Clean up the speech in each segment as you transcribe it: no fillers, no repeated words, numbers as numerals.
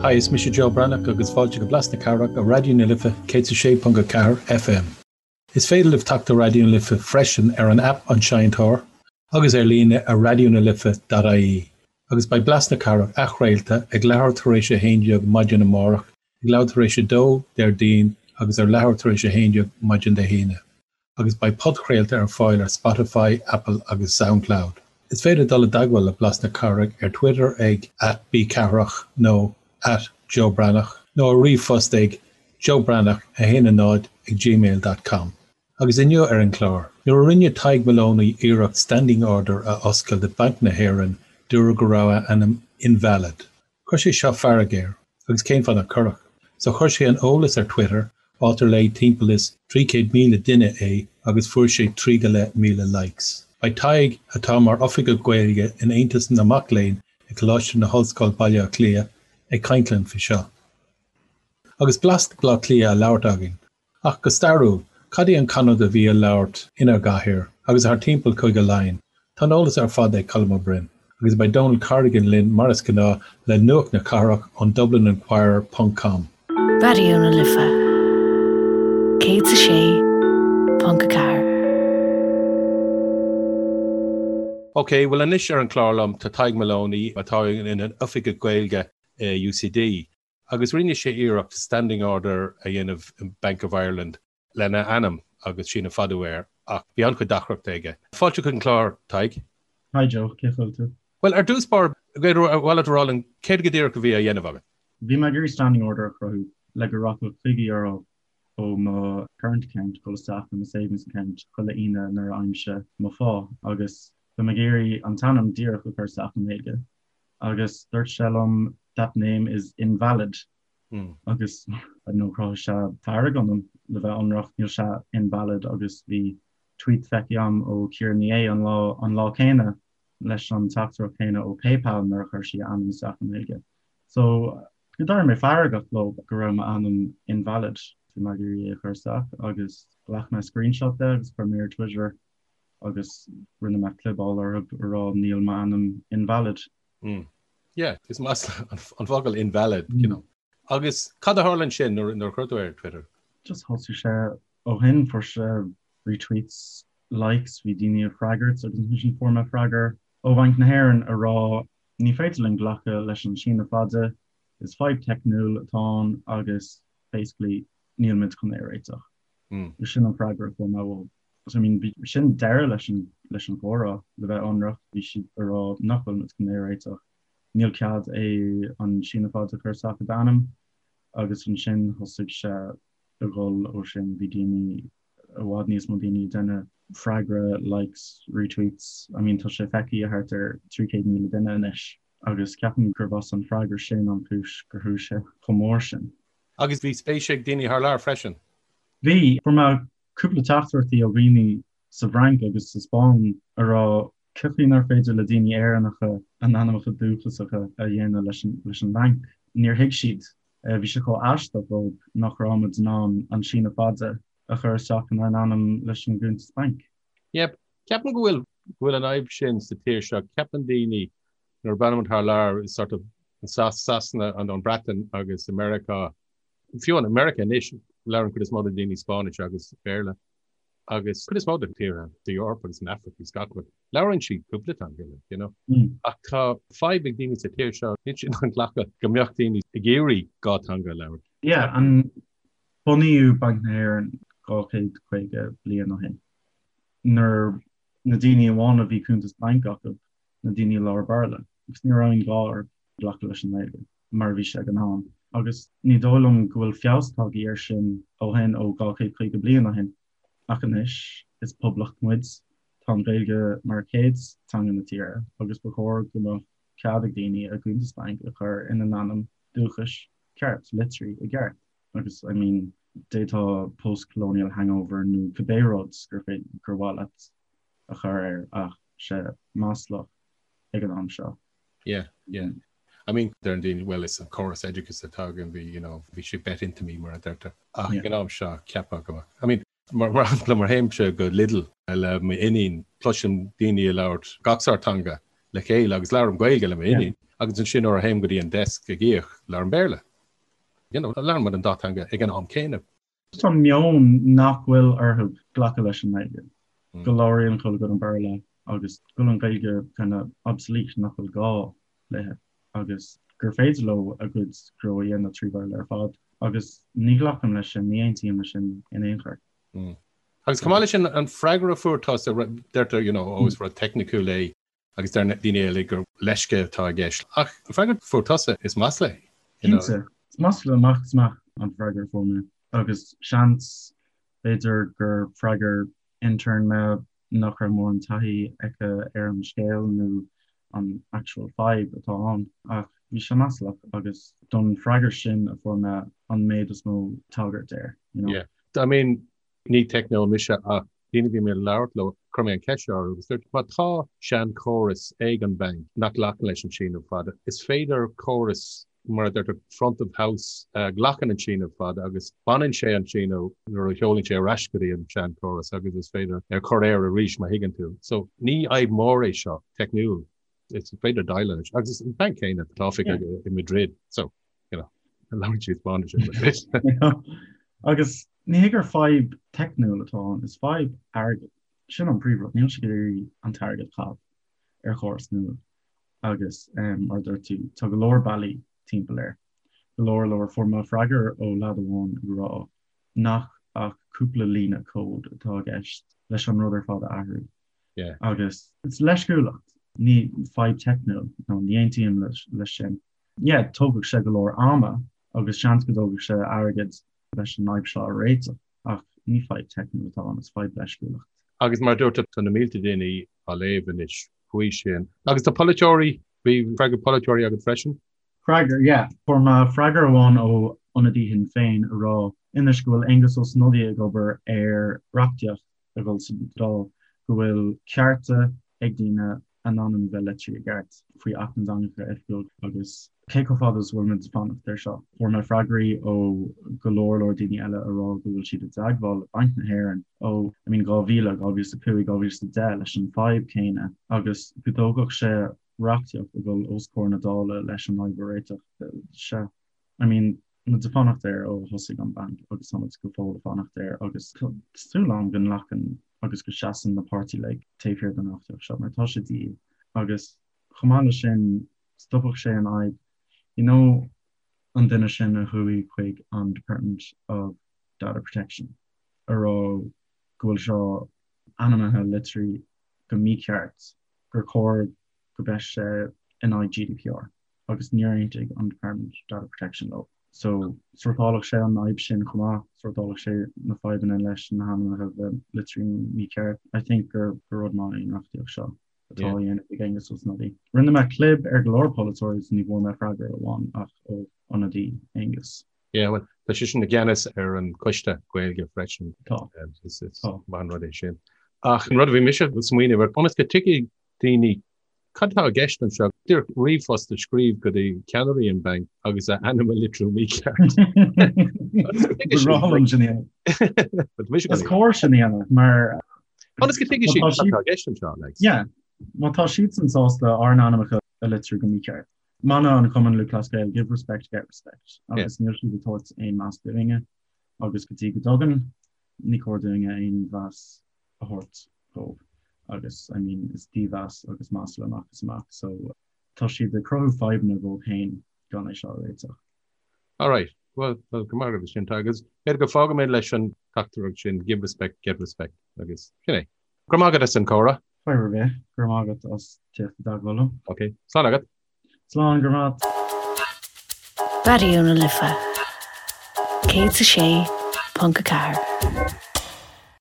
Hi, is mise Joe Breathnach agus fáilte go Blas na Cathrach ar Raidió na Life 106.4 FM. Is féidir libh teacht ar Raidió na Life freisin ar an aip An Seinnteoir agus ar líne ar raidionalife.ie. Agus beidh Blas na Cathrach athchraolta ag leathuair tar éis a 11 maidin amárach, ag leathuair tar éis a 2 Déardaoin agus ar leathuair tar éis a 11 maidin Dé hAoine. Agus beidh podchraolta ar fáil ar Spotify, Apple agus Soundcloud. Is féidir dul i dteagmháil le Blas na Cathrach ar Twitter ag @bcathrach nó @joebreathnach nó ar ríomhphost ag joebreathnach10 ag gmail dot com. Agus inniu ar an chlár, nuair a rinne Tadhg Moloney iarracht standing order a oscailt i Banc na hÉireann, dúradh go raibh a ainm invalid. Chuir sé seo fearg air, agus cén fáth nach gcuirfeadh? So chuir sé an eolas ar Twitter, áit ar léigh timpeall is 300,000 duine é agus fuair sé 3 go leith míle likes. Beidh Tadhg, atá mar Oifigeach Gaeilge in Aontas na Mac Léinn ag Coláiste na hOllscoile Baile Átha Cliath, ag caint linn faoi seo. Agus blas Bhaile Átha Cliath á labhairt againn. Ach go stairiúil, cad í an canúint a bhí á labhairt inár gcathair agus thar timpeall Cúige Laighean? Tá an eolas ar fad ag Colm Ó Broin. Agus beidh Donal Corrigan linn mar is gnáth le nuacht na cathrach ón DublinInquirer ponc com. Raidió na Life 106.4. Ok, bhuel anois ar an chlár liom tá Tadhg Moloney atá ina Oifigeach Gaeilge i UCD. Agus rinne sé iarracht standing order a dhéanamh in Bank of Ireland lena ainm agus síneadh fada air ach bhí an-chuid deacrachta aige. Fáilte chuig an chlár, Tadhg. Hi Joe, cén chaoi a bhfuil tú? Bhuel, ar dtús báire, ar mhaith leat a rá linn céard go díreach a bhí á dhéanamh agat? Bhí mé ag iarraidh standing order a chruthú le go rachadh €50 ó mo current account dul isteach i mo savings account chuile Aoine nuair a fhaighimse mo phá agus bhí mé ag iarraidh an t-ainm díreach a chur isteach i nGaeilge. agus dúirt sé liom that name is invalid agus I don't know chruthaigh sé fearg ionam le bheith ionraic níl sé invalid agus bhí tweet feicthe agam ó Ciara Ní É an lá an lá céanna leis an teachtaireacht chéanna ó PayPal nuair a chuir sí a ainm isteach i nGaeilge. So d'éirigh mé feargach leo go raibh m'ainm invalid bhí mé ag iarraidh é a chur isteach agus ghlac mé screenshot de agus chuir mé ar Twitter agus rinne mé clibeáil orthu a rá níl m'ainm invalid. Mm. Yeah, is masla an focal invalid, you know. Agus cad a tharla ansin nuair a chuir tú ar Twitter? Just thosaigh sé ó shin, fuair sé retweets, likes, bhí daoine ag freagairt agus ansin fuair mé freagra ó Bhanc na hÉireann a rá ní féidir linn glacadh leis an síneadh fada, is fadhb teicniúil atá ann agus basically níl muid chun é a réiteach. Mm. Sin an freagra a fuair mé uathu. So I mean bhí sin deireadh leis an leis an chomhrá le bheith ionraic, bhí siad a rá nach bhfuil muid chun é a réiteach, níl cead é an síneadh fada a chur isteach i d'ainm agus ansin thosaigh sé a dhul ó sin, bhí daoine i bhfad níos mó daoine ag déanamh freagra, likes, retweets, I mean tá sé feicthe thart ar 300,000 duine anois agus ceapaim gurb as an freagra sin an chúis gur chuaigh sé chomh mór sin. Agus bhí spéis ag daoine thar lear freisin? Bhí, fuair mé cúpla teachtaireachtaí ó dhaoine sa bhFrainc agus sa Spáinn a rá cén chaoi nár féidir le daoine Éireannacha a n-ainmneacha dúchasacha a dhéanamh leis an leis an mbanc. Níor thuig siad. Bhí sé chomh aisteach dóibh nach raibh muid in ann an síneadh fada a chur isteach inár n-ainm leis an gcuntas bainc. Yep. Ceapaim go bhfuil go bhfuil an fhadhb sin sa tír seo. Ceapann daoine nuair a breathnaíonn thar lear sort of Sasana an an Breatain agus America Fiú in America anois, labhrann cuid is mó de daoine Spáinnis agus Béarla agus cuid is mó de tíortha sa Eoraip agus san Afraic agus gach rud, labhrann siad cúpla teanga, like, you know. Ach tá fadhb ag daoine sa tír seo, níl siad in ann glacadh go mbeadh daoine ag iarraidh dhá teanga a labhairt. Yeah, an bunaíodh Banc na hÉireann 250 bliain ó shin, nuair na daoine amháin a bhí cuntas bainc acu, na daoine a labhair Béarla, agus ní raibh aon ghá orthu glacadh leis an nGaeilge. mar a bhí sé ag an am. Agus ní dóigh liom go bhfuil feabhas tagtha air sin ó shin, ó 250 bliain ó shin. Ach anois, is poblacht muid, tá an Ghaeilge mar chéad teanga na tíre agus ba chóir go mbeadh cead ag daoine a gcuntas bainc a chur ina n-ainm dúchais ceart, literally i gceart. Agus I mean, d'fhéadfá post-colonial hangover nó cibé rud gur féidir, gur mhaith leat a chur air ach sé maslach ag an am seo. Yeah, yeah. I mean, deireann daoine, well, is an córas oideachais atá againn, bhí, you know, bhí sé bet into me mar a deirtear. Ach ag an am seo, ceapadh go mbeadh. I mean, mar, mar shampla, mar théimse go Lidl le m'iníon, cloisim daoine ag labhairt gach sórt teanga le chéile agus labhraím Gaeilge le m'iníon. Agus ansin nuair a théim go dtí an desk ag íoc, labhraím Béarla. You know, labhrann muid an dá teanga ag an am céanna. Tá meon nach bhfuil orthu glacadh leis an nGaeilge, go labhraíonn chuile dhuine Béarla agus go bhfuil an Ghaeilge kind of obsolete, nach bhfuil gá léi agus gur féidir leo a gcuid gnó a dhéanamh trí Bhéarla ar fad. Agus ní ghlacaim leis sin, ní aontaím leis sin in aon chor. Agus chomh maith leis sin, an freagra a fuair tusa, deirtear, you know, oh, is rud teicniciúil é agus deir daoine eile gur leisce atá i gceist. Ach an freagra a fuair tusa, is masla é. Cinnte, is masla amach is amach an freagra a fuair mé. Agus seans, b'fhéidir gur freagair intern mé nach raibh mórán taithí aici ar an scéal nó an actual fadhb atá ann. Ach bhí sé maslach agus don freagra sin a fuair mé an méid is mó tagairt air, you know. Yeah. I mean, Ní teicneoir mise ach daoine a bhí mé ag labhairt leo, chuir mé an cheist seo orthu agus dúirt, má tá seanchóras ag an bhanc nach nglacann leis an síneadh fada, is féidir córas, mar a deirtear, front of house, a ghlacann an síneadh fada agus baineann sé an síneadh nuair a sheolann sé ar ais go dtí an seanchóras agus is féidir é a chur air arís má thuigeann tú. So ní fhadhb mhór é seo, teicniúil. Is féidir déileáil leis. Agus is an banc céanna atá oifig i Madrid. So, you know, labhrann siad Spáinnis i Madrid. Agus ní hé gur fadhb teicniúil atá ann, is fadhb airgid. Sin an príomhrud, níl siad ag iarraidh an t-airgead a chaitheamh ar chóras nua. Agus mar a dúirt tú, tá go leor bealaí timpeall air. Go leor leor. Fuair mé freagra ó leaid amháin ag rá nach ach cúpla líne cód atá i gceist leis an rud ar fad a athrú. Yeah. Agus is leisciúlacht, ní fadhb teicniúil, nó ní aontaím leis sin. Yeah, tógfaidh sé go leor ama agus seans go dtógfaidh sé airgead leis an fhadhb seo a réiteach, ach ní fadhb teicniúil atá ann, is fadhb leisciúlacht. Agus mar a dúirt tú, tá na mílte daoine á léamh anois faoi sin. Agus tá polaiteoirí, bhí freagra polaiteoirí agat freisin? Freagra, yeah. Fuair mé freagra amháin ó ionadaí Shinn Féin a rá anois go bhfuil Aengus Ó Snodaigh ag obair ar reachtaíocht a dhul sa Dáil go bhfuil cearta ag daoine a n-ainm bheith litrithe i gceart faoi Acht na dTeangacha Oifigiúil agus cé chomh fada is a bhfuil muid ag fanacht air seo. Fuair mé freagraí ó go leor leor daoine eile a rá go bhfuil siad i dteagmháil le Banc na hÉireann ó I mean 2000, 2005, 2010 leis an fadhb céanna agus go dtógfadh sé reachtaíocht a dhul os comhair na Dála leis an fhadhb a réiteach. Sea, I mean, muid ag fanacht air ó thosaigh an banc agus tá muid go fóill ag fanacht air agus tá súil agam go nglacann agus go seasann na páirtithe uilig taobh thiar den reachtaíocht seo mar tá sé de dhíth agus chomh maith leis sin stopfadh sé an fhadhb you know an duine sin a chuaigh chuig an Department of Data Protection a rá go bhfuil seo ainmnithe litrithe go mícheart gur chóir go mbeadh sé in aghaidh GDPR. agus níor aontaigh an Department of Data Protection leo. So, sórtálfadh sé an fhadhb sin chomh maith, sórtálfadh sé na fadhbanna leis na hainmneacha bheith litrithe mícheart. I think gur rud maith é an reachtaíocht seo atá á dhéanamh ag Aengus Ó Snodaigh. Rinne mé clib ar go leor polaiteoirí is ní bhfuair mé freagra amháin ach ó ionadaí Aengus. Yeah, well, tá seisean i gceannas ar an choiste Gaeilge freisin. Tá. Is maith an rud é sin. Ach an rud a bhí mise ag smaoineamh air, ionas go dtuigfidh daoine Cad atá i gceist anseo? Díreach ríomhphost a scríobh go dtí ceannairí an bhainc agus a ainm a litriú mícheart. Is cóir sin a dhéanamh mar. Ionas go dtuigfidh siad cad atá i gceist anseo, like. Yeah, má tá siadsan sásta ár n-ainmneacha a litriú go mícheart. Mana an Chumann Lúthchleas Gael, give respect, get respect. Agus níl siad ag tabhairt aon meas dúinne agus go dtí go dtugann, ní cóir dúinne aon mheas a thabhairt dóibh agus I mean is dímheas agus masla amach is amach so tá siad ag cruthú fadhbanna dóibh féin gan é seo a réiteach. Alright, well, well go maith agat sin agus b'fhéidir go bhfágfaidh mé leis an teachtaireacht sin give respect, get respect agus sin é. Go raibh maith agat as an comhrá. Fadhb ar bith, go raibh maith agat as teacht i dteagmháil liom. Ok, slán agat. Slán, go raibh maith. Raidió na Life 106.4.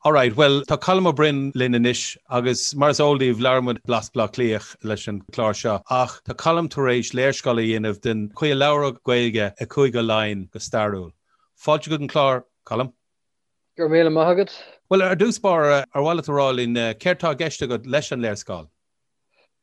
Alright, bhuel, tá Colm Ó Broin linn anois agus mar is eol daoibh, labhair muid Blas Bhaile Átha Cliath leis an chlár seo ach tá Colm tar éis léarscáil a dhéanamh den chaoi a labhradh Gaeilge i Cúige Laighean go stairiúil. Fáilte chuig an chlár, Colm. Go raibh míle maith agat. Bhuel, ar dtús báire, ar mhaith leat a rá linn céard tá i gceist agat leis an léarscáil?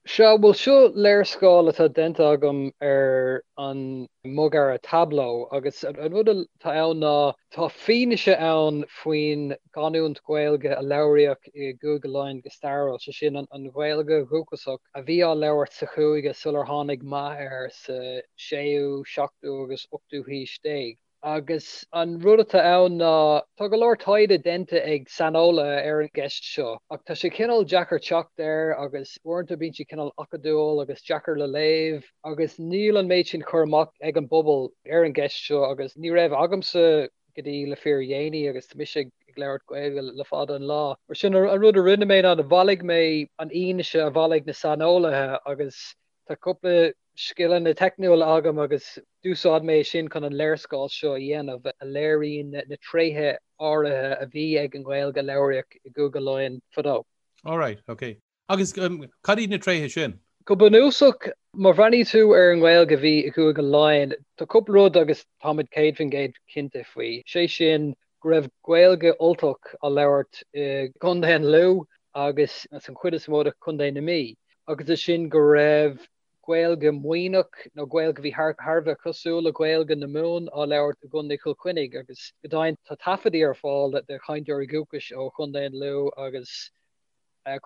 Sea, bhuel seo léarscáil atá déanta agam ar an mbogearra Tableau agus an rud atá ann ná tá fianaise ann faoin gcanúint Ghaeilge a labhraíodh i gCúige Laighean go stairiúil, sé sin an Ghaeilge dhúchasach a bhí á labhairt sa chúige sular tháinig meath air sa séú, seachtú agus ochtú haois déag. Agus an rud atá ann ná, tá go leor taighde déanta ag saineolaithe ar an gceist seo, ach tá sé cineál deacair teacht air agus uaireanta bíonn sé cineál acadúil agus deacair le léamh agus níl an méid sin cur amach ag an bpobal ar an gceist seo agus ní raibh agamsa go dtí le fíordhéanaí agus tá mise ag labhairt Gaeilge le fada an lá. Mar sin, an rud a rinne mé ná bhailigh mé an fhianaise a bhailigh na saineolaithe agus Tá cúpla scileanna teicniúla agam agus d'úsáid mé sin chun an léarscáil seo a dhéanamh, a léiríonn na tréithe áirithe a bhí ag an nGaeilge a labhraíodh i gCúige Laighean fadó. Alright, ok. Agus cad iad na tréithe sin? Go bunúsach, má bhreathnaíonn tú ar an nGaeilge a bhí i gCúige Laighean, tá cúpla rud agus táimid 100% cinnte faoi, sé sin go raibh Gaeilge Ultach á labhairt i gContae an Lú agus san chuid is mó de Chontae na Mí, agus ansin go raibh Gaeilge Mhuimhneach nó Gaeilge a bhí thar a bheith cosúil le Gaeilge na Mumhan á labhairt i gContae Chill Chainnigh agus go deimhin tá taifeadaí ar fáil de chainteoirí dúchais ó Chontae an Lú agus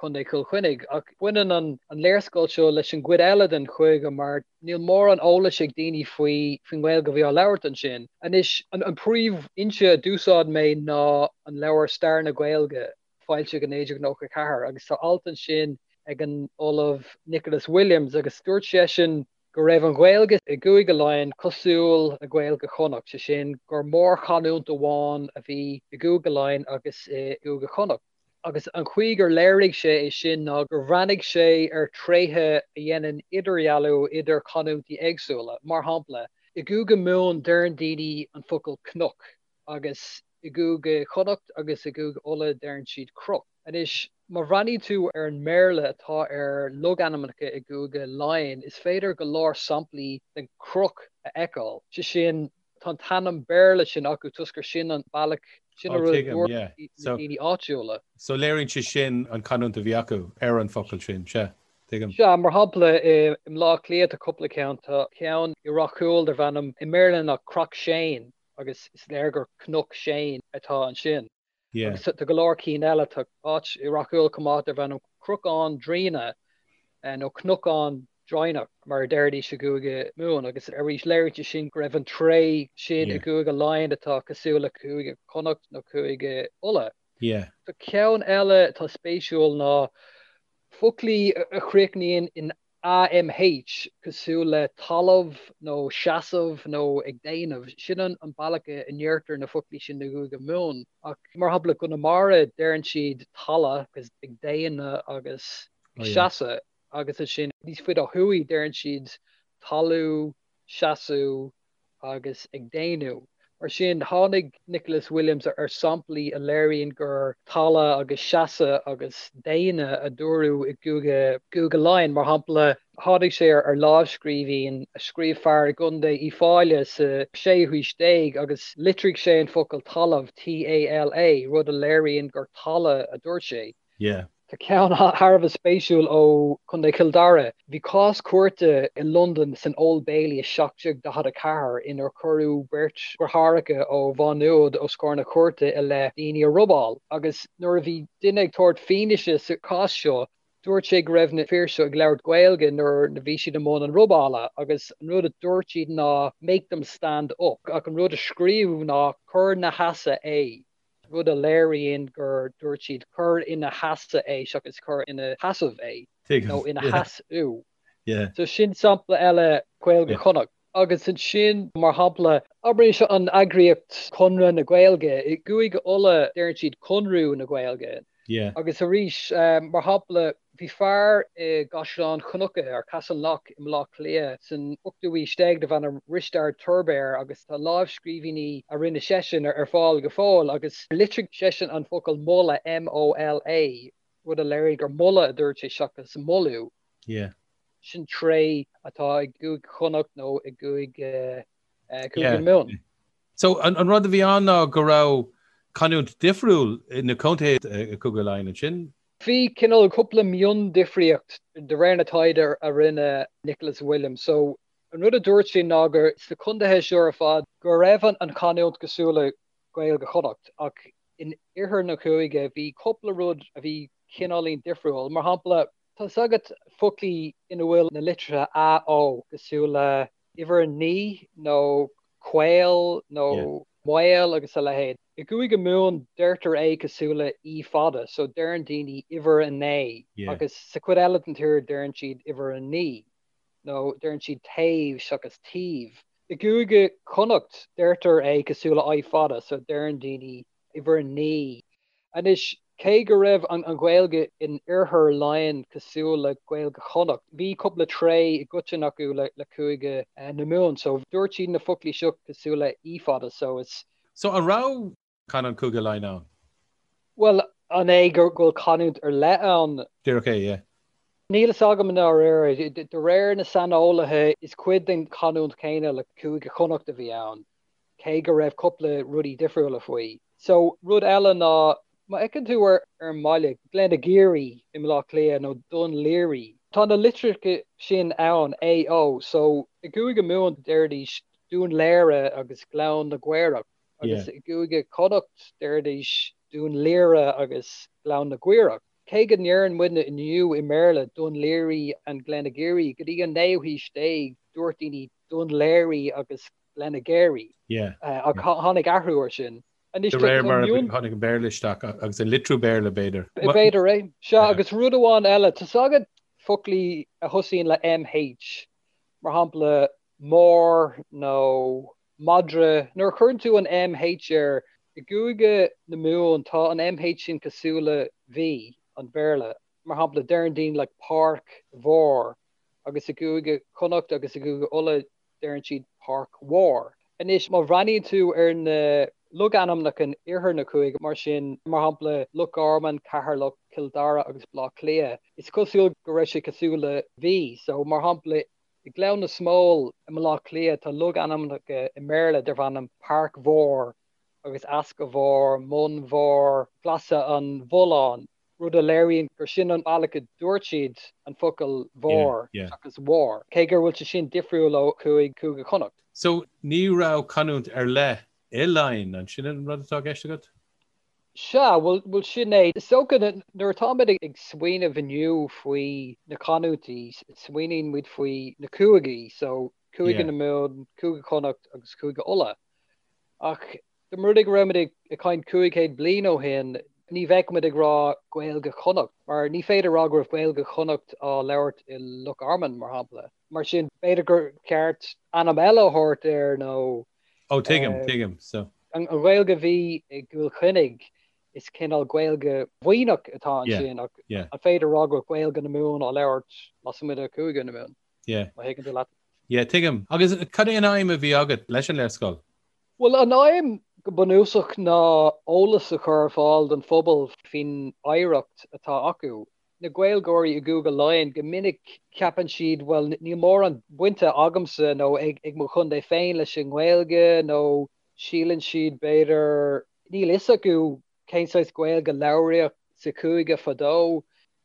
Contae Chill Chainnigh. Ach baineann an léarscáil seo leis an gcuid eile den chúige mar níl mórán eolais ag daoine faoi faoin nGaeilge a bhí á labhairt ansin. Anois, an príomhfhoinse a d'úsáid mé ná an leabhar Stair na Gaeilge, foilsithe i 1994, agus tá alt ansin ag an Ollamh Nicholas Williams agus dúirt seisean go raibh an Ghaeilge i gCúige Laighean cosúil le Gaeilge Chonnacht, sé sin gur mórchanúint amháin a bhí i gCúige Laighean agus i gCúige Chonnacht. Agus an chaoi gur léirigh sé é sin ná gur bhreathnaigh sé ar thréithe a dhéanann idirdhealú idir canúintí éagsúla. Mar shampla, i gCúige Mumhan deireann daoine an focal cnoc agus i gCúige Chonnacht agus i gCúige Uladh deireann siad croc. Anois, má bhreathnaíonn tú ar an mBéarla atá ar logainmneacha i gCúige Laighean, is féidir go leor samplaí den croc a fheiceáil, sé sin, Tá an t-ainm Béarla sin acu toisc gur sin an bealach, sin an rud a dúirt na daoine áitiúla. So léiríonn sé sin an canúint a bhí acu ar an focal sin, sea, tuigim. Sea, mar shampla i mBleá Cliath tá cúpla ceann, tá ceann i Ráth Cúil darb ainm i mBéarla ná Craughshane agus is léir gur Cnoc Shane atá ansin. Agus tá go leor cinn eile, tá áit i Ráth Cúil chomh maith darb ainm Cruacán Draoine nó Cnocán Draighneach mar a deiridís i gCúige Mumhan agus arís léiríonn sé sin go raibh an tréith sin i gCúige Laighean atá cosúil le Cúige Chonnacht nó Cúige Uladh. Tá ceann eile atá spéisiúil ná foclaí a chríochnaíonn in AMH, cosúil le talamh nó seasamh nó ag déanamh. Sin an bealach a ndeirtear na foclaí sin i gCúige Mumhan. Ach mar shampla i gConamara deireann siad tala agus ag déanamh agus ag seasamh agus ansin níos faide ó thuaidh deireann siad talú, seasamh agus ag déanamh. Mar sin, tháinig Nicholas Williams ar samplaí a léiríonn gur tala agus seasamh agus déanamh a dúradh i gCúige gCúige Laighean. Mar shampla, tháinig sé ar lámhscríbhinn a scríobh fear i gContae Uíbh Fhailí sa séú haois déag agus litrigh sé an focal talamh, TALA, rud a léiríonn gur tala a dúirt sé. Yeah. Tá ceann thar a bheith spéisiúil ó Chontae Chill Dara. Bhí cás cúirte i Londain san Old Bailey i 1744 inar cuireadh beirt dheartháireacha ó Mhá Nuad os comhair na cúirte i leith daoine a robáil. Agus nuair a bhí duine ag tabhairt fianaise sa chás seo, dúirt sé go raibh na fir seo ag labhairt Gaeilge nuair a bhí siad i mbun an robála agus an rud a dúirt siad ná make them stand up ach an rud a scríobhadh ná cuir 'na sheasamh é. rud a léiríonn gur dúirt siad cuir ina sheasamh é seachas cuir ina sheasamh é nó ina sheasamh. So sin sampla eile Gaeilge Chonnacht. Agus ansin, mar shampla, abraimis an eagraíocht Conradh na Gaeilge, i gCúige Uladh deireann siad Conradh na Gaeilge. Agus arís, mar shampla, Bhí fear i gCaisleán Cnucha, or Castleknock, i mBleá Cliath san ochtú haois déag darbh ainm Risteard Tuirbéar agus tá lámhscríbhinní a rinne seisean ar fáil go fóill agus litrigh seisean an focal moladh, M-O-L-A, rud a léirigh gur moladh a dúirt sé seachas moladh. Sin tréith atá i gCúige Chonnacht nó i gCúige Mumhan. So, an rud a bhí ann ná go raibh canúint difriúil na contaetha i gCúige Laighean ansin? Bhí cineál cúpla miondifríocht de réir na taighde a rinne Nicholas Williams. So an rud a dúirt sé ná gur sna contaetha seo ar fad go raibh an chanúint cosúil le Gaeilge Chonnacht ach in oirthear na cúige bhí cúpla rud a bhí cineáilín difriúil. Mar shampla, tá 's agat foclaí ina bhfuil na litreacha A, O cosúil le uimhir 9 nó caol nó maol agus a leithéid. I gCúige Mumhan deirtear é cosúil le í fada, so deireann daoine uimhir a naoi agus sa chuid eile den tír deireann siad uimhir a naoi nó deireann siad taobh seachas taobh. I gCúige Chonnacht deirtear é cosúil le i fada, so deireann daoine uimhir a naoi. Anois, cé go raibh an Ghaeilge in oirthear Laighean cosúil le Gaeilge Chonnacht, bhí cúpla tréith i gcoiteann acu le Cúige na Mumhan. So, dúirt siad na foclaí seo cosúil le í fada. So, is. So, an raibh canúint Chúige Laighean ann? Bhuel, an é go bhfuil canúint ar leith ann? Díreach é, yeah. Níl fhios agam i ndáiríre. De réir na saineolaithe, is cuid den chanúint chéanna le Cúige Chonnacht a bhí ann. cé go raibh cúpla rudaí difriúla faoi. So, rud eile ná, má fheiceann tú ar an mbaile, Glenageary i mBleá Cliath nó Dún Laoghaire, tá na litreacha sin ann, A, O, so i gCúige Mumhan deiridís Dún Léire agus Gleann na gCaorach agus i gCúige Chonnacht deiridís Dún Laoire agus Gleann na gCaorach. Cé go ndeireann muidne inniu i mBéarla Dún Laoghaire and Glenageary, go dtí an naoú haois déag dúirt daoine Dún Léirí agus Glenageary. Ach tháinig athrú air sin. Anois De réir mar a tháinig an Béarla isteach agus an litriú Béarla, b'fhéidir. B'fhéidir é. Sea, agus rud amháin eile, tá 's agat foclaí a thosaíonn le MH, mar shampla mór nó madra, nuair a chuireann tú an MH air, i gCúige na Mumhan tá an MH sin cosúil le V an Bhéarla. Mar shampla, deireann daoine like páirc mhór agus i gCúige Chonnacht agus i gCúige Uladh deireann siad Páirc Mhór. Anois, má bhreathnaíonn tú ar na logainmneacha in iarthar na cúige, mar sin, mar shampla, Loch Garman, Ceatharlach, Cill Dara agus Baile Átha Cliath, is cosúil go raibh sé cosúil le V. So, mar shampla, i nGleann na Smól i mBaile Átha Cliath tá logainmneacha i mBéarla darb ainm Páirc Mhór agus Easca Mhór, Mun Mhór, Glaise an Bhulláin. rud a léiríonn gur sin an bealach a dúirt siad an focal mhór seachas mhór, cé gur bhfuil sé sin difriúil ó Chúige Cúige Chonnacht. So, ní raibh canúint ar leith i Laighin, an sin an rud atá i gceist agat? Sea, bhuel, sin é. Is dócha, nuair atáimid ag smaoineamh inniu faoi na canúintí, smaoiníonn muid faoi na cúigí, so Cúige na Mumhan, Cúige Chonnacht agus Cúige Uladh. Ach Dá mba rud é go raibh muid ag caint 500 bliain ó shin, ní bheadh muid ag rá Gaeilge Chonnacht, mar ní féidir a rá go raibh Gaeilge Chonnacht á labhairt i Loch Garman, mar shampla. Mar sin, b'fhéidir gur cheart ainm eile a thabhairt air nó. Ó, tuigim, tuigim. So. An Ghaeilge a bhí i gCill Chainnigh, is cineál Gaeilge Mhuimhneach atá ansin, ach an féidir a rá go raibh Gaeilge na Mumhan á labhairt lasmuigh de Chúige na Mumhan? Yeah. Má thuigeann tú leat. Yeah, tuigim. Agus cad é an aidhm a bhí agat leis an léarscáil? Bhuel, an aidhm go bunúsach ná eolas a chur ar fáil don phobal faoin oidhreacht atá acu. Na Gaeilgeoirí i gCúige Laighean, go minic ceapann siad, bhuel, níl mórán bainte agamsa nó ag mo chontae féin leis an nGaeilge nó síleann siad, b'fhéidir, níl fhios acu cén saghas Gaeilge a labhraíodh sa chúige fadó.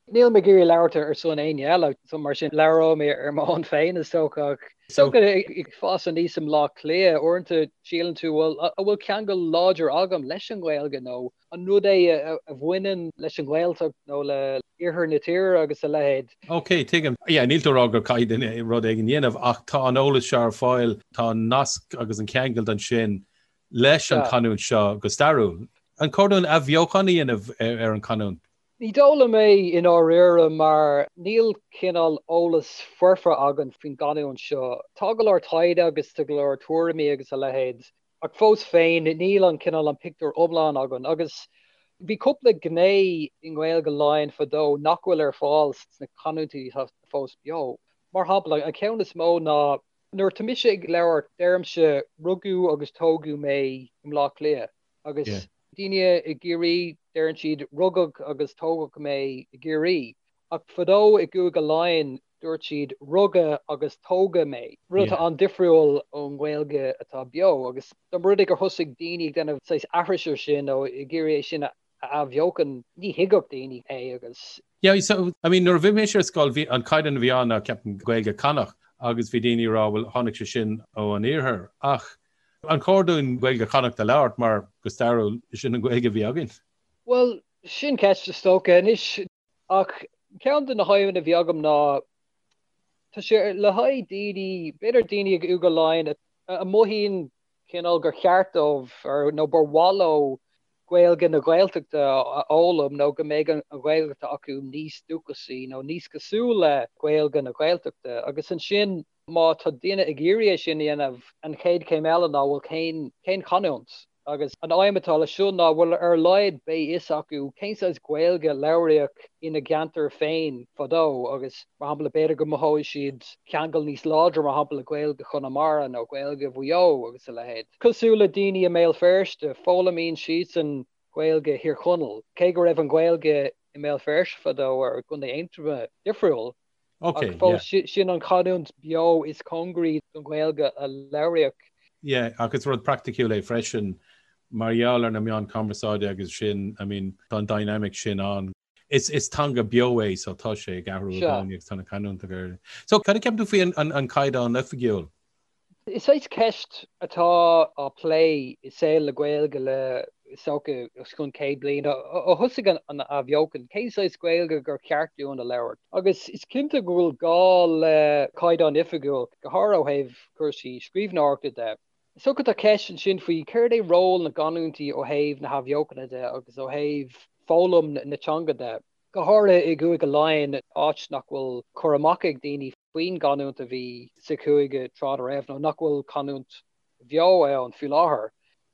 Níl mé ag iarraidh labhairt ar son éinne eile, so mar sin labhróidh mé ar m'own féin is dócha. Ach is dócha ag fás aníos i mBleá Cliath, uaireanta síleann tú, bhuel, an bhfuil ceangal láidir agam leis an nGaeilge nó an rud é a bhaineann leis an nGaeltacht nó le iarthar na tíre agus a leithéid. Ok, tuigim. Yeah, níl tú ag rá gur caithfidh duine rud éigin a dhéanamh ach tá an eolas seo ar fáil, tá an nasc agus an ceangal ansin leis an chanúint seo go stairiúil. An cóir dúinn athbheochan a dhéanamh ar an chanúint? Ní dóigh liom é i ndáiríre mar níl cineál eolas foirfe againn faoin gcanúint seo. Tá go leor taighde agus tá go leor tuairimí agus a leithéid ach fós féin níl an cineál an pictiúr iomlán againn agus bhí cúpla gné i nGaeilge Laighean fadó nach bhfuil ar fáil sna canúintí atá fós beo. Mar shampla, an ceann is mó ná nuair atá mise ag labhairt deirimse rugadh agus tógadh mé i mBleá Cliath agus daoine i gCiarraí, deireann siad rugadh agus tógadh mé i gCiarraí. Ach fadó i gCúige Laighean dúirt siad rugadh agus tógadh mé, rud atá an-difriúil ón nGaeilge atá beo. Agus dá mba rud é gur thosaigh daoine ag déanamh saghas aithris ar sin nó ag iarraidh é sin a. a athbheochan, ní thuigfeadh daoine é agus. Yeah, so, I mean, nuair a bhí mise ar scoil, bhí an caighdeán a bhí ann ná, ceapaim, Gaeilge Connacht agus bhí daoine ag rá, bhuel, tháinig sé sin ó an iarthar. Ach an chóir dúinn Gaeilge Chonnacht a labhairt mar go stairiúil sin an Ghaeilge a bhí againn? Bhuel, sin ceist is dócha. Anois, ach ceann de na haidhmeanna a bhí agam ná, tá sé le haghaidh daoine, b'fhéidir daoine i gCúige Laighean a mothaíonn cineál gur cheart dóibh nó gur mhaith leo Gaeilge na Gaeltachta a fhoghlaim nó go mbeidh an Ghaeilge atá acu níos dúchasaí nó níos cosúil le Gaeilge na Gaeltachta. Agus ansin má tá duine ag iarraidh é sin a dhéanamh, an chéad chéim eile ná bhuel cén cén chanúint? Agus an aidhm atá leis seo ná bhuel ar a laghad beidh fhios acu cén saghas Gaeilge a labhraíodh ina gceantar féin fadó agus mar shampla b'fhéidir go mothóidh siad ceangal níos láidre mar shampla le Gaeilge Chonamara nó Gaeilge Mhaigh Eo agus a leithéid. Cosúil le daoine i mBéal Feirste, foghlaimíonn siadsan Gaeilge Thír Chonaill, cé go raibh an Ghaeilge i mBéal Feirste fadó ar i gContae Aontroma difriúil. Ok, Ach fós sin an chanúint beo is cóngaraí don Ghaeilge a labhraíodh. Yeah, ach is rud praiticiúil é freisin mar gheall ar na meáin cumarsáide agus sin, I mean, tá an dynamic sin ann. Is, is teanga beo é so tá sé ag athrú i gcónaí agus tá na canúintí ag athrú. So cad a cheapann tú faoi an, an, an caighdeán oifigiúil? Is saghas ceist atá á plé i saol na Gaeilge le, is dócha, os cionn 100 bliain, ó thosaigh an athbheochan, cén saghas Gaeilge gur cheart dúinn a labhairt? Agus is cinnte go bhfuil gá le caighdeán oifigiúil, go háirithe ó thaobh cúrsaí scríbhneoireachta de. Is dócha tá ceist ansin faoi céard é ról na gcanúintí ó thaobh na hathbheochana de agus ó thaobh foghlaim na teanga de, go háirithe i gCúige Laighean, áit nach bhfuil cur amach ag daoine faoin gcanúint a bhí sa chúige tráth dá raibh, nó nach bhfuil canúint bheo ann faoi láthair.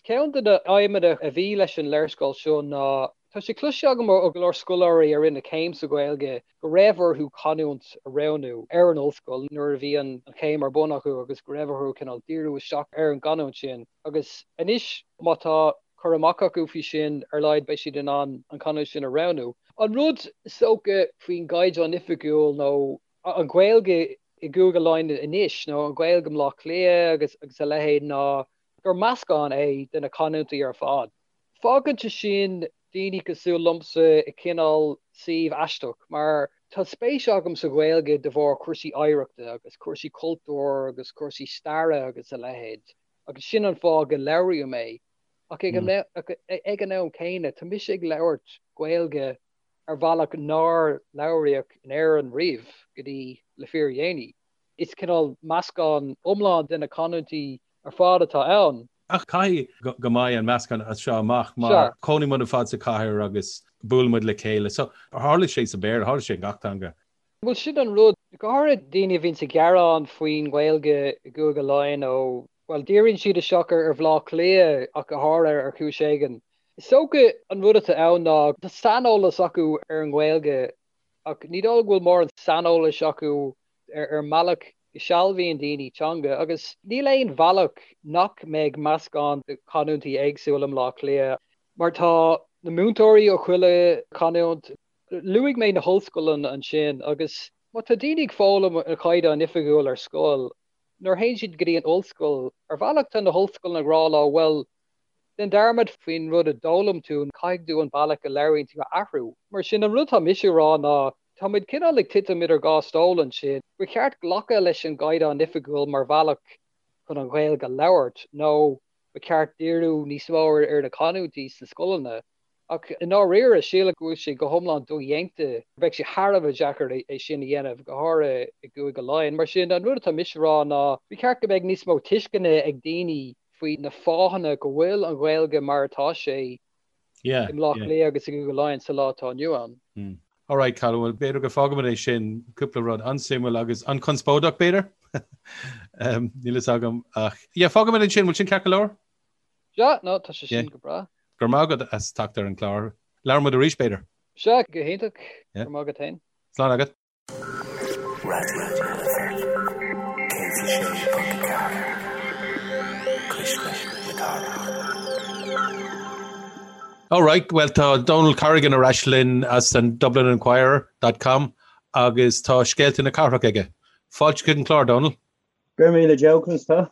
Ceann de na aidhmeanna a bhí leis an léarscáil seo ná, tá sé cloiste agam ó go leor scoláirí a rinne céim sa Ghaeilge go raibh orthu canúint a roghnú ar an ollscoil nuair a bhí an chéim ar bun acu agus go raibh orthu cineál díriú isteach ar an gcanúint sin. Agus anois má tá cur amach acu faoi sin, ar laghad beidh siad in ann an chanúint sin a roghnú. An rud is dócha faoin gCaighdeán Oifigiúil nó an Ghaeilge i gCúige Laighean anois, nó an Ghaeilge i mBleá Cliath agus agus a leithéid, ná gur meascán é de na canúintí ar fad. Fágann sé sin daoine cosúil liomsa i cineál suíomh aisteach, mar tá spéis agam sa Ghaeilge de bharr cúrsaí oidhreachta agus cúrsaí cultúir agus cúrsaí staire agus a leithéid, agus sin an fáth go labhraím é. Ach ag an am céanna, tá mise ag labhairt Gaeilge ar bhealach nár labhraíodh in Éirinn riamh go dtí le fíordhéanaí. Is cineál meascán iomlán de na canúintí ar fad atá ann. Ach caithfidh go mbeidh an meascán as seo amach mar cónaíonn muid ar fad sa chathair agus buaileann muid le chéile. So tharla sé sa Bhéarla, tharla sé i ngach teanga. Bhuel sin an rud, go háirithe daoine a bhíonns ag gearán faoin nGaeilge i gCúige Laighean ó, bhuel, díríonn siad isteach ar Bhaile Átha Cliath ach go háirithe ar chúis éigin. Is dócha an rud atá ann ná tá saineolas acu ar an nGaeilge ach ní dóigh go bhfuil mórán saineolais acu ar an mbealach go sealbhaíonn daoine teanga agus níl aon bhealach nach mbeidh meascán de chanúintí éagsúla i mBleá Cliath mar tá na múinteoirí ó chuile chanúint. Luaigh mé na hollscoileanna ansin agus má tá daoine ag foghlaim an Chaighdeán Oifigiúil ar scoil, nuair a théann siad go dtí an ollscoil, ar bhealach tá na hollscoileanna ag rá leo, bhuel, déan dearmad faoin rud a d'fhoghlaim tú, caithfidh tú an bealach a labhraíonn tú a athrú. Mar sin, an rud atá mise a rá ná, tá muid cineál ag titim idir dhá stól ansin, ba cheart glacadh leis an gCaighdeán Oifigiúil mar bhealach chun an Ghaeilge a labhairt nó ba cheart díriú níos mó ar na canúintí sna scoileanna. Ach i ndáiríre, sílim go bhfuil sé go hiomlán dodhéanta, bheadh sé thar a bheith deacair é sin a dhéanamh, go háirithe i gCúige Laighean. Mar sin, an rud atá mise a rá ná, ba cheart go mbeadh níos mó tuisceana ag daoine faoi na fáthanna go bhfuil an Ghaeilge mar atá sé i mBleá Cliath agus i gCúige Laighean sa lá atá inniu ann. Alright, Colm, bhuel, b'fhéidir go bhfágfaimid é sin, cúpla rud an-suimiúil agus an-chonspóideach, b'fhéidir? Níl fhios agam ach, yeah, fágfaimid ansin, bhfuil sin ceart go leor? Sea, no, tá sé sin go breá. Go raibh maith agat as teacht ar an gclár. Labhróidh muid arís, b'fhéidir. Sea, go hiontach. Go raibh maith agat féin. Slán agat. Raidió na Life 106.4 Cuisle na Cathrach. Alright, well tá Donal Corrigan ar ais linn as an Dublin Inquirer dot com agus tá scéalta na cathrach aige. Fáilte chuig an chlár, Donal. Go raibh míle Joe, conas tá?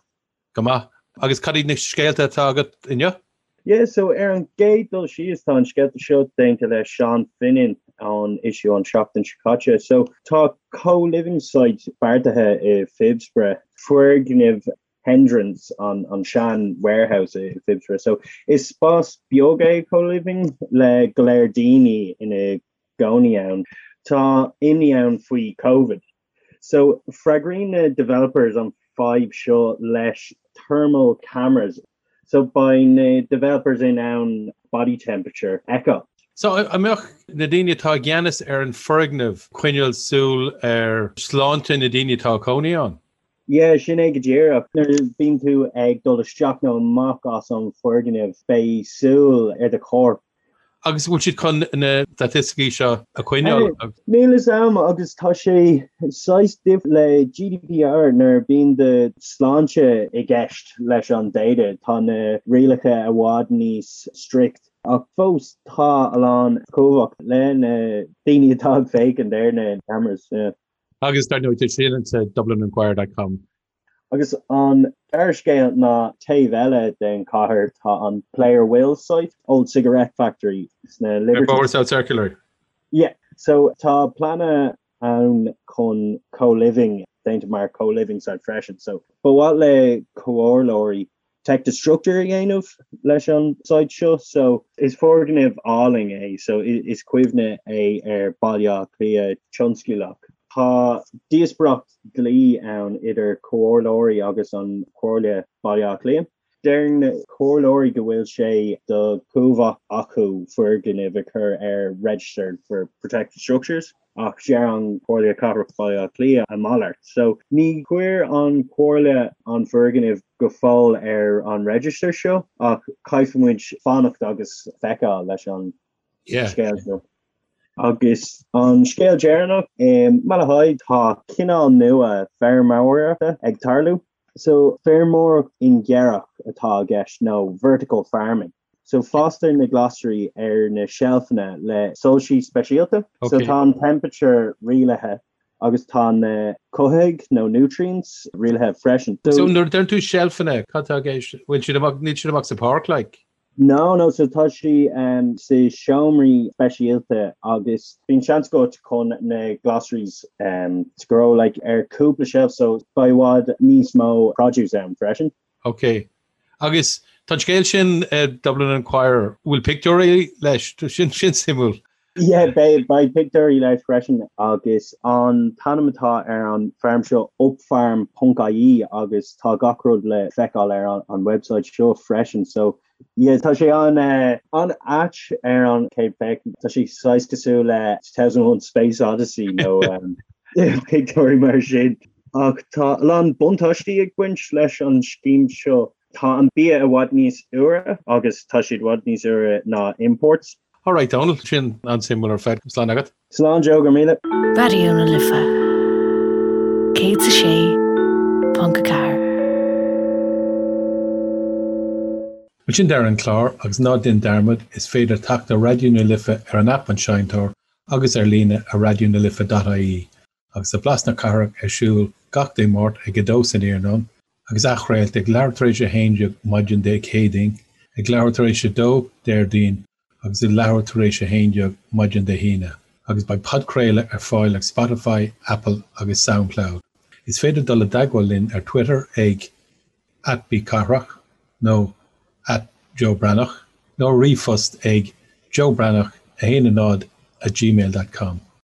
Go maith. Agus cad iad na scéalta atá agat inniu? Yeah, so ar an gcéad dul síos tá an scéalta seo déanta le Seán Finnan ón issue an seachtain seo caite. So tá co-living site beartaithe i Phibsborough, foirgneamh Hendrons, an an sean warehouse i Phibsborough. So is spás beag é co-living le go leor daoine ina gcónaí ann. Tá imní ann faoi Covid. So freagraíonn na developers an fadhb seo leis thermal cameras. So beidh na developers in ann body temperature a fheiceáil. So an mbeadh na daoine atá i gceannas ar an foirgneamh coinneáil súil ar sláinte na daoine atá ag cónaí ann? Yeah, sin é go díreach. Nuair a bhíonn tú ag dul isteach nó amach as an foirgneamh beidh súil ar do chorp. Agus bhfuil siad chun na staitisticí seo a choinneáil? Níl fhios a'm agus tá sé saghas difriúil le GDPR nuair a bíonn do sláinte i gceist leis an data tá na rialacha i bhfad níos strict ach fós tá a lán cumhacht le na daoine atá ag féachaint ar na cameras. Agus dar ndóigh tá sin sa Dublininquirer dot com. Agus an dara scéal ná taobh eile den chathair tá an Player Will site, Old Cigarette Factory sna Liberties. Ar Bhóthar South Circular. Yeah. So tá pleananna ann chun co-living déanta mar co-living site freisin. So ba mhaith le comhairleoirí protected structure a dhéanamh leis an site seo. So is foirgneamh álainn é, so is cuimhne é ar Baile Átha Cliath tionsclaíoch. Tá díospóireacht dlí ann idir comhairleoirí agus an Chomhairle Baile Átha Cliath. Deir na comhairleoirí go bhfuil sé de chumhacht acu foirgnimh a chur ar register for protected structures. Ach deir an Chomhairle Cathrach Baile Átha Cliath a mhalairt. So ní chuir an Chomhairle an foirgneamh go fóill ar an register seo ach caithfidh muid fanacht agus feiceáil leis an scéal seo. Agus an scéal deireanach, i Malahide tá cineál nua feirmeoireachta ag tarlú. So feirmeoireacht ingearach atá i gceist nó vertical farming. So fástar na glasraí ar na seilfeanna le soilsí speisialta. So tá an temperature rialaithe agus tá na cothaithigh nó nutrients rialaithe freisin. So nuair a deireann tú seilfeanna, cad tá i gceist? Bhfuil siad amach, níl siad amach sa pháirc like? No, no, so tá sí sa seomraí speisialta agus bíonn seans agat chun na glasraí to grow like ar cúpla shelf so beidh i bhfad níos mó produce ann freisin. Ok. Agus tá an scéal sin i Dublin Inquirer, bhfuil pictiúirí leis? Sin sin suimiúil. Yeah, beidh beidh pictiúirí leis freisin agus an t-ainm atá ar an farm seo upfarm ponc ie agus tá gach rud le feiceáil ar an an website seo freisin so yeah tá sé an eh, an-ait ar an chéad féachaint. Tá sé saghas cosúil le 2001 Space Odyssey nó um, pictiúirí mar sin. Ach tá a lán buntáistí ag baint leis an scéim seo. Tá an bia i bhfad níos úire agus tá siad i bhfad níos úire ná imports. Alright Dónal, sin an-suimiúil ar fad. Slán agat. Slán Joe, go raibh míle. Raidió na Life 106.4. Bhuel sin deireadh an clár agus ná déan dearmad, is féidir teacht ar Raidió na Life ar an aip An Seinnteoir agus ar líne ar raidionalife.ie. Agus tá Blas na Cathrach ar siúl gach Dé Máirt ag 2 san iarnóin, agus athchraolta ag leathuair tar éis 11 maidin Dé Céadaoin, ag leathuair tar éis 2 Déardaoin agus ag leathuair tar éis 11 maidin Dé hAoine. Agus beidh podchraoladh ar fáil ag Spotify, Apple agus Soundcloud. Is féidir dul i dteagmháil linn ar Twitter ag @bcathrach nó @JoeBreathnach nó ríomhphost ag joebreathnach 1 0 @gmail.com.